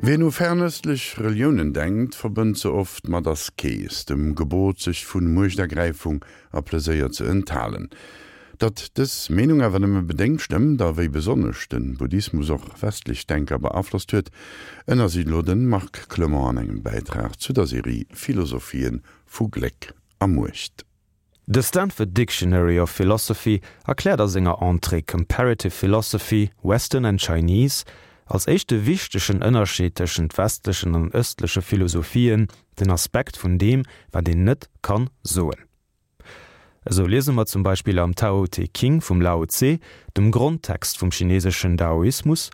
Wien u fernëstlech Reliounen denkt, verbënnt se oft mat Askees, dem Gebot sech vu Muechtergräifung a Pleséier ze enthalen. Datt dës Meenung awer nëmme bedéngt stëmmt a wéi besonnesch de Buddhismus och westlech Denker beaflosst huet, ënnersicht elo de Marc Clement an engem Bäitrag zu der Serie Philosophien vu Gléck a Muecht. De Stanford Dictionary of Philosophy erkläert a senger Entrée Comparative Philosophy, Western and Chinese als éischte wichtegen Ënnerscheed tëschent westlechen an ëstleche Philosophien den Aspekt vun deem, wat een net kann soen. Esou liese mer zum Beispill am Tao Te King vum Lao Tse, dem Grondtext vum chineseschen Daoismus,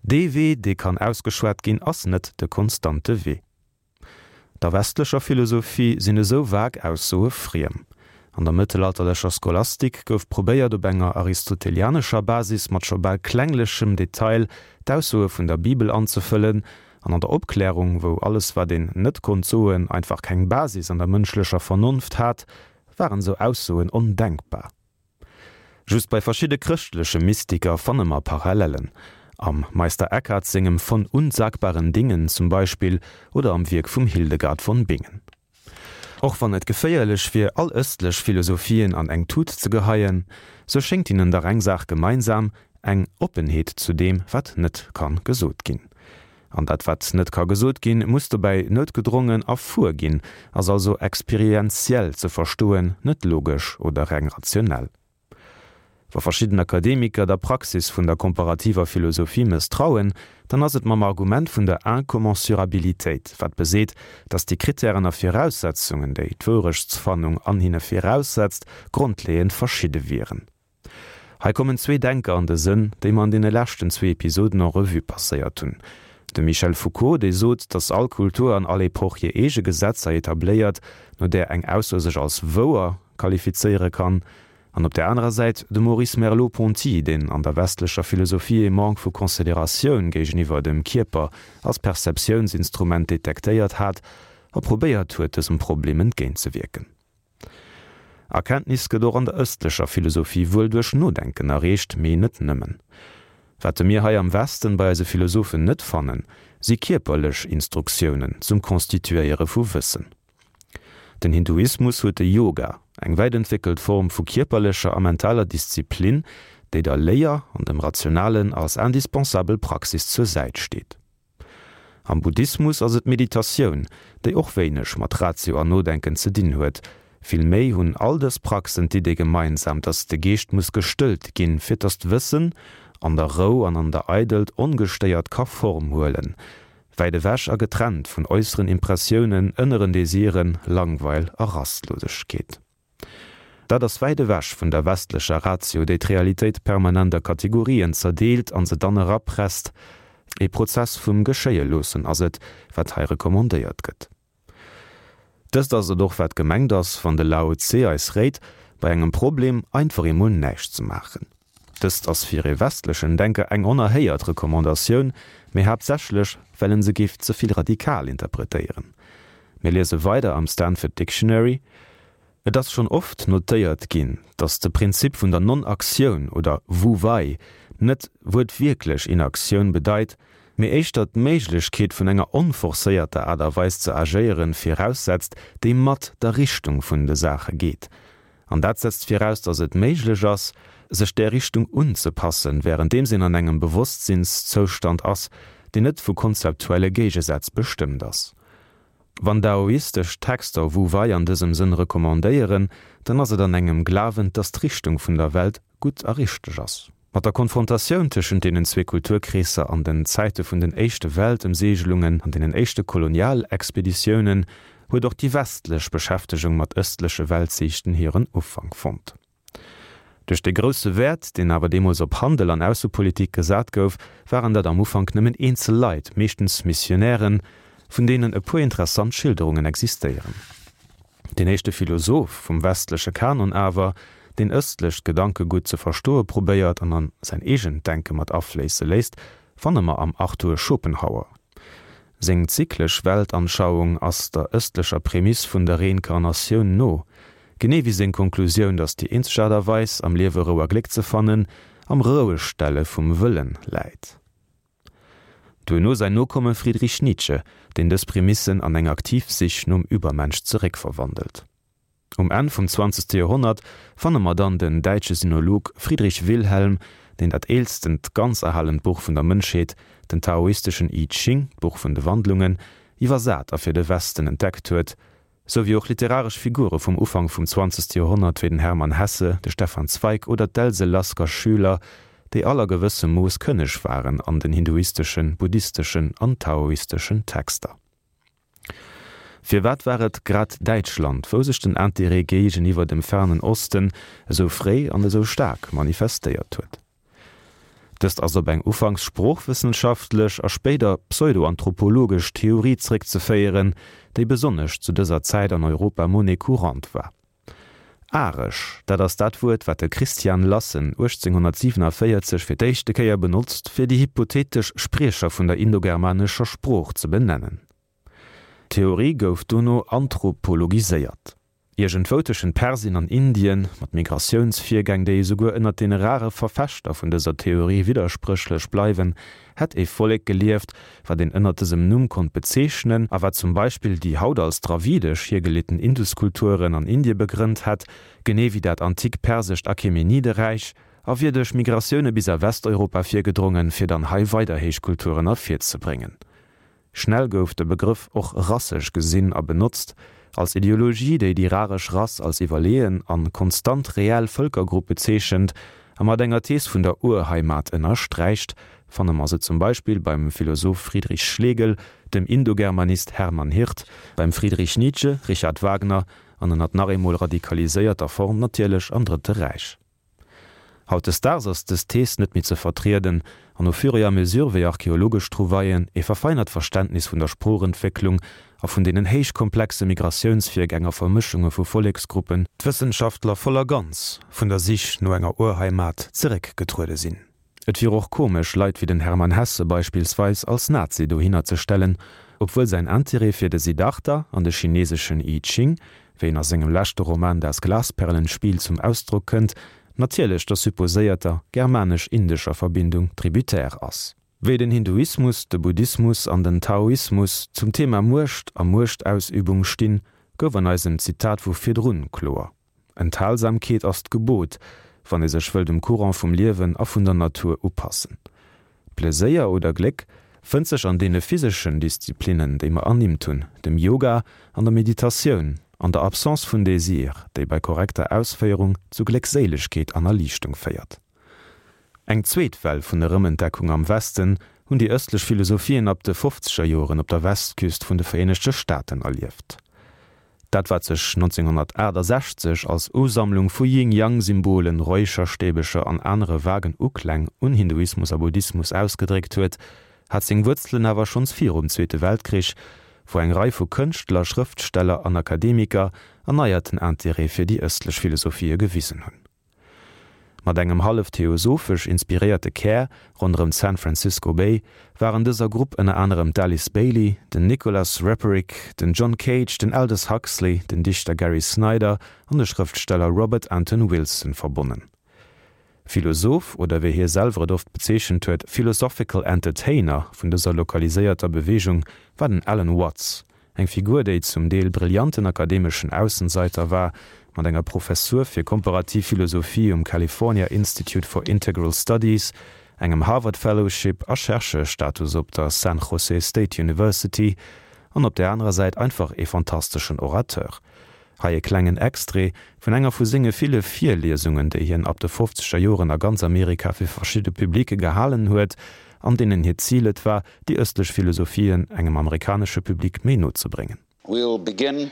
Dee Wee, dee kann ausgeschwat ginn, ass net de konstante Wee. Der westlecher Philosophie sinn esou vag Aussoe friem. An der mëttelalterlecher Scholastik gouf probéiert op enger aristotelianescher Basis mat scho bal klenglechem Detail d'Aussoe vun der Bibel anzefëllen, an an der Opklärung, wou alles wat een net konnt soen einfach keng Basis an der mënschlecher Vernonft hat, waren esou Aussoen ondenkbar. Just bei verschidde chrëschtleche Mystiker fanne mer Parallellen. Am Meister Eckhart sengem Von unsagbaren Dingen zum Beispill oder am Wierk vum Hildegard von Bingen. Och wann et geféierlech wier, all ëstlech Philosophien an eng Tut ze geheien, sou schéngt hinnen dach eng Saach gemeinsam, eng Oppenheet zu deem, wat net kann gesot ginn. An dat wat net ka gesot ginn, muss dobäi noutgedrongen erfuer ginn, ass also experienziell ze verstoen, net logesch oder reng rationell. Wa verschidden Akademiker der Praxis vun der komparativer Philosophie mësstrauen, dann ass et mam Argument vun der Incommensurabilitéit, wat beseet, datt déi Kritären a Viraussetzungen, déi d'Wourechtsfannung an hinne viraussetzt, grondleeënd verschidde wieren. Hei kommen zwee Denker an de Sënn, déi mer an deene leschten zwee Episoden en revue passéiert hunn. De Michel Foucault, dee sot, datt all Kultur an all Epoch hir eege Gesetzer etabléiert, no där eng Ausso sech als wouer qualifizéiere kann. An op där anerer Säit de Maurice Merleau-Ponty, deen an der westlecher Philosophie ee Manque vu Consideratioun géigeniwwer dem Kierper als Perceptiounsinstrument detektéiert hat a probéiert huet, dësem Problem entgéintzewierken. Erkenntnis gëtt och an der ëstlecher Philosophie wuel duerch Nodenken erreecht, mee net nëmmen. Wat mir hei am Westen bei eise Philosophen net fannen, si kierperlech Instruktiounen zum Constituéiere vu Wëssen. Den Hinduismus huet de Yoga, eng wäit entwéckelt Form vu kierperlecher a mentaler Disziplin, déi der Léier an dem Rationalen als indispensabel Praxis zur Säit steet. Am Buddhismus ass et d'Meditatioun, déi och wéineg mat Ratio an Nodenken ze dinn huet. Vill méi hunn all dës Praxen d'Idee gemeinsam, dass de Geescht muss gestëllt ginn, fir dass d'Wëssen an der Rou an an der Eidelt ongestéiert ka Form huelen, wäit ewech a getrennt vun äusseren Impressiounen, ënneren Desiren, Langweil a Rastlosegkeet. Dat ass wäit ewech vun der westlecher Ratio, déi d'Realitéit permanent a Kategorien zerdeelt an se dann erapresst. E Prozess vum Geschéie-loossen ass et, wat hei recommandéiert gëtt. Dëst ass et och, wat gemengt ass, wann de Lao Tse eis réit, bei engem Problem einfach emol näischt ze maachen. Dëst ass fir ee westlechen Denker eng onerhéiert Recommandatioun, mee haaptsächlech, well en se géif ze vill radikal interpretéieren. Mir liese weider am Stanford Dictionary, Et ass schonn oft notéiert ginn, datt de Prinzip vun der Non-Aktioun oder Wu Wei net wuertwierklech Inaktioun bedeit, mee éischter d'Méiglechkeet vun enger onforcéierter Aart a Weis ze agéieren viraussetzt, déi mat der Richtung vun de Saache geet. An dat setzt viraus, datt et méiglech ass, sech där Richtung unzepassen, wärenddeems een an engem Bewosstsinkszoustand ass, deen net vu konzeptuelle Géigesätz bestëmmt ass. Wann daoistesch Texter Wu Wei an dësem Sënn recommandéieren, dann ass et an engem Glawen, datt d'Richtung vun der Welt gutt a richteg ass. Mat der Konfrontatioun tëschent deenen zwee Kulturkreesser an den Zäite vun den éischte Weltëmseegelungen an deenen éischte Kolonialexpeditiounen huet och déi westlech Beschäftegung mat ëstleche Weltsiichten hiren Ufank fonnt. Duerch de grousse Wäert, deen awer deemools op Handel an Aussepolitik gesat gouf, waren dat am Ufank nëmmen eenzel Leit, meeschtens Missionären, vun deenen e puer interessant Schilderungen existéieren. Deen éischte Philosoph vum westleche Kanon awer, deen ëstlecht Gedankegutt ze verstoe probéiert an an säin eegent Denke mat afléisse léisst, fanne mer am Arthur Schopenhauer. Seng zyklesch Weltanschauung ass der ëstlecher Prämiss vun der Reinkarnatioun no, genee wéi seng Konklusioun, datt déi eenzeg Aart a Weis, am Liewe Rou a Gléck ze fannen, am Rouegstelle vum Wëllen läit. Duerno säin Nokomme Friedrich Nietzsche, deen dës Prämissen an eng aktiv Sich nom Übermensch zeréckverwandelt. Um Enn vum zwanzegste Joerhonnert fanne mer dann den däitsche Sinolog Friedrich Wilhelm, deen dat eelstent ganz erhalent Buch vun der Mënschheet, den taoisteschen I Ching, d'Buch vun de Wandlungen, iwwersat a fir de Westen entdeckt huet, sou wéi och literaresch Figure vum Ufank vum zwanzegste Joerhonnert wéi den Hermann Hesse, de Stefan Zweig oder d'Else Lasker-Schüler, déi all a gewëssem Mooss kënneg waren an den hinduisteschen, buddhisteschen an taoisteschen Texter. Firwat war et grad Däitschland, wou sech den Interêt géigeniwwer dem Fernen Osten esou fréi an esou staark manifestéiert huet? Dëst ass op eng ufanks sproochwëssenschaftlech a spéider pseudoanthropologesch Theorie zréckzeféieren, déi besonnesch zu dëser Zäit an Europa Monnaie courante war. Aresch, dat ass dat Wuert, wat de Christian Lassen 1847 fir d'éischte Kéier benotzt, fir déi hypothetesch Spriecher vun der indogermanescher Sprooch ze benennen. D'Theorie gouf dono anthropologiséiert. Iergendwou tëschent Persien an Indien, mat Migratiounsvirgäng, déi esouguer ënnert deene rare Verfechter vun dëser Theorie widderspréchlech bleiwen, hätt e Vollek gelieft, wat een ënnert dësem Numm konnt bezeechnen a wat zum Beispill déi haut als dravidesch hiergeleeten Induskulturen an Indie begrënnt hätt, genee wéi dat antik persescht Achämenideräich, a wier duerch Migratioune bis a Westeuropa virgedrongen, fir dann hei weider Héichkulturen ervirzebréngen. Schnell gouf de Begrëff och rassesch gesinn a benotzt, als Ideologie, déi déi raresch Rass als iwwerleeën an konstant reell Vëlkergrupp bezeechent a mat enger Thees vun der Urheimat ënnersträicht, fanne mer se zum Beispill beim Philosoph Friedrich Schlegel, dem Indogermanist Hermann Hirt, beim Friedrich Nietzsche, Richard Wagner an ënnert nach eemol radikaliséierter Form natierlech am Drëtte Räich. Hautdesdaags ass dës Thees net méi ze vertrieden, an au fur et à mesure wéi archeologesch Trouvaillen ee verfeinert Verständnis vun der Sproochentwécklung a vun deenen héich komplexe Migratiounsvirgäng a Vermëschunge vu Volleksgruppen, d'Wëssenschaftler voll a ganz vun der Sich no enger Urheimat zeréckgetruede sinn. Et wier och komesch, Leit wéi den Hermann Hesse beispillsweis als Nazi dohinner ze stellen, obwuel säin Interêt fir de Siddhartha an de chineseschen I Ching, wéi en a sengem leschte Roman Das Glasperlenspiel zum Ausdrock kënnt, natierlech der supposéierter germanesch-indescher Verbindung tributaire ass. Wéi den Hinduismus, de Buddhismus an den Taoismus zum Thema Muecht a Muechtausübung stinn, gouf an eisem Zitat vu virdrun kloer. Enthalsamkeet ass d'Gebot, wann ee sech wëll dem Courant vum Liewen a vun der Natur upassen. Pleséier oder Gléck fënnt sech an deene physeschen Disziplinnen, déi mer ernimmt hunn, dem Yoga an der Meditatioun, an der Absence vun Désir, déi bei korrekter Ausféierung zu Gléckséilegkeet an Erliichtung féiert. Eng zweet Well vun Erëmentdeckung am Westen hunn déi ëstlech Philosophien ab de fofzeger Joren op der Westküst vun de Vereenegte Staaten erlieft. Dat wat sech 1968 als Usammlung vu Yin-Yang-Symbolen, Räucherstäbecher an anere vagen Ukläng un Hinduismus a Buddhismus ausgedréckt huet, hat seng Wuerzelen awer schonns virum Zweete Weltkrich, wou eng Rei vu Kënschtler, Schrëftsteller an Akademiker erneierten Interêt fir déi ëstlech Philosophië gewisen hunn. Mat engem hallef theosophesch inspiréierte Kär ronderëm d'San Francisco Bay waren dëser Grupp ënner anerem d'Alice Bailey, den Nicholas Roerich, den John Cage, den Aldous Huxley, den Dichter Gary Snyder an de Schrëftsteller Robert Anton Wilson verbonnen. Philosoph, oder wéi hie selwer et oft bezeechent huet, Philosophical Entertainer vun dëser lokaliséierter Beweegung war den Alan Watts, Eng Figur, déi zum Deel brillanten akademeschen Aussenseiter war, mat enger Professur fir komparativ Philosophie um California Institute for Integral Studies, engem Harvard Fellowship a Chercheur-Status op der San Jose State University, an op där anerer Säit einfach ee fantasteschen Orateur. Hei e klengen Extrait vun enger vu senge ville Virliesungen, déi hien ab de fofzeger Joren a ganz Amerika fir verschidde Publike gehalen huet, an deenen hiert Zil et war, déi ëstlech Philosophien engem amerikanesche Public méi no ze bréngen. We'll begin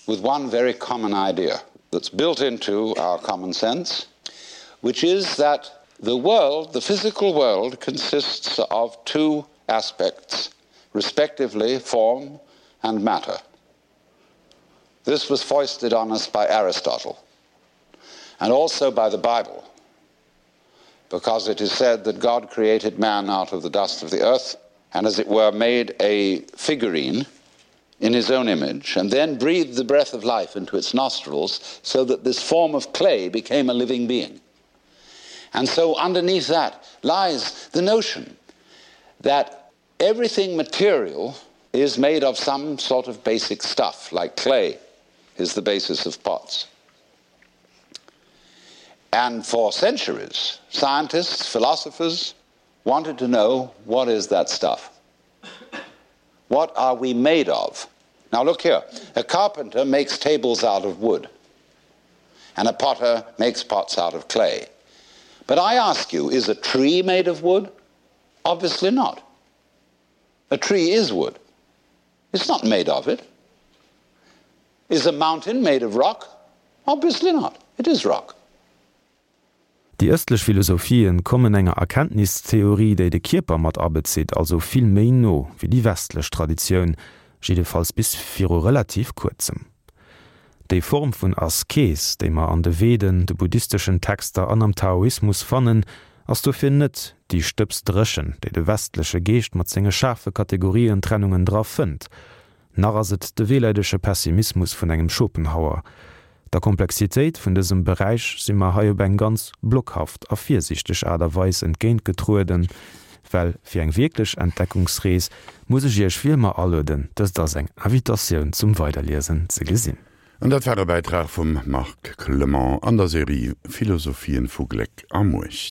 with one very common idea that's built into our common sense, which is that the world, the physical world, consists of two aspects, respectively form and matter. This was foisted on us by Aristotle and also by the Bible, because it is said that God created man out of the dust of the earth and as it were made a figurine in his own image and then breathed the breath of life into its nostrils so that this form of clay became a living being. And so underneath that lies the notion that. Everything material is made of some sort of basic stuff, like clay is the basis of pots. And for centuries, scientists, philosophers wanted to know what is that stuff? What are we made of? Now look here, a carpenter makes tables out of wood and a potter makes pots out of clay. But I ask you, is a tree made of wood? Obviously not. A tree is wood. It's not made of it. Is a mountain made of rock? Obviously not. It is rock. Déi ëstlech Philosophien kommen enger Erkenntnistheorie, déi de Kierper mat abezitt, also vill méi no wéi déi westlech Traditioun, jiddefalls bis viru relativ kuerzem. Déi Form vun Askees, déi mer an de Veden, de buddhisteschen Texter an am Taoismus fannen, ass dofir net déi Stëbsdréchen, déi de westleche Geescht mat senge schaarfe Kategorientrennungen dra fënnt, Nach ass et de wehleidege Pessimismus vun engem Schopenhauer. Der Komplexitéit vun dësem Beräich si mer hei op eng ganz blockhaft a virsiichteg Aart a Weis entgéintgetrueden, well fir eng wierklech Entdeckungsrees muss ech Iech wéi ëmmer alueden, dëst als eng Invitatioun zum Weiderliesen ze gesinn. An dat war e Bäitrag vum Marc Clement an der Serie Philosophien vu Gléck a Muecht.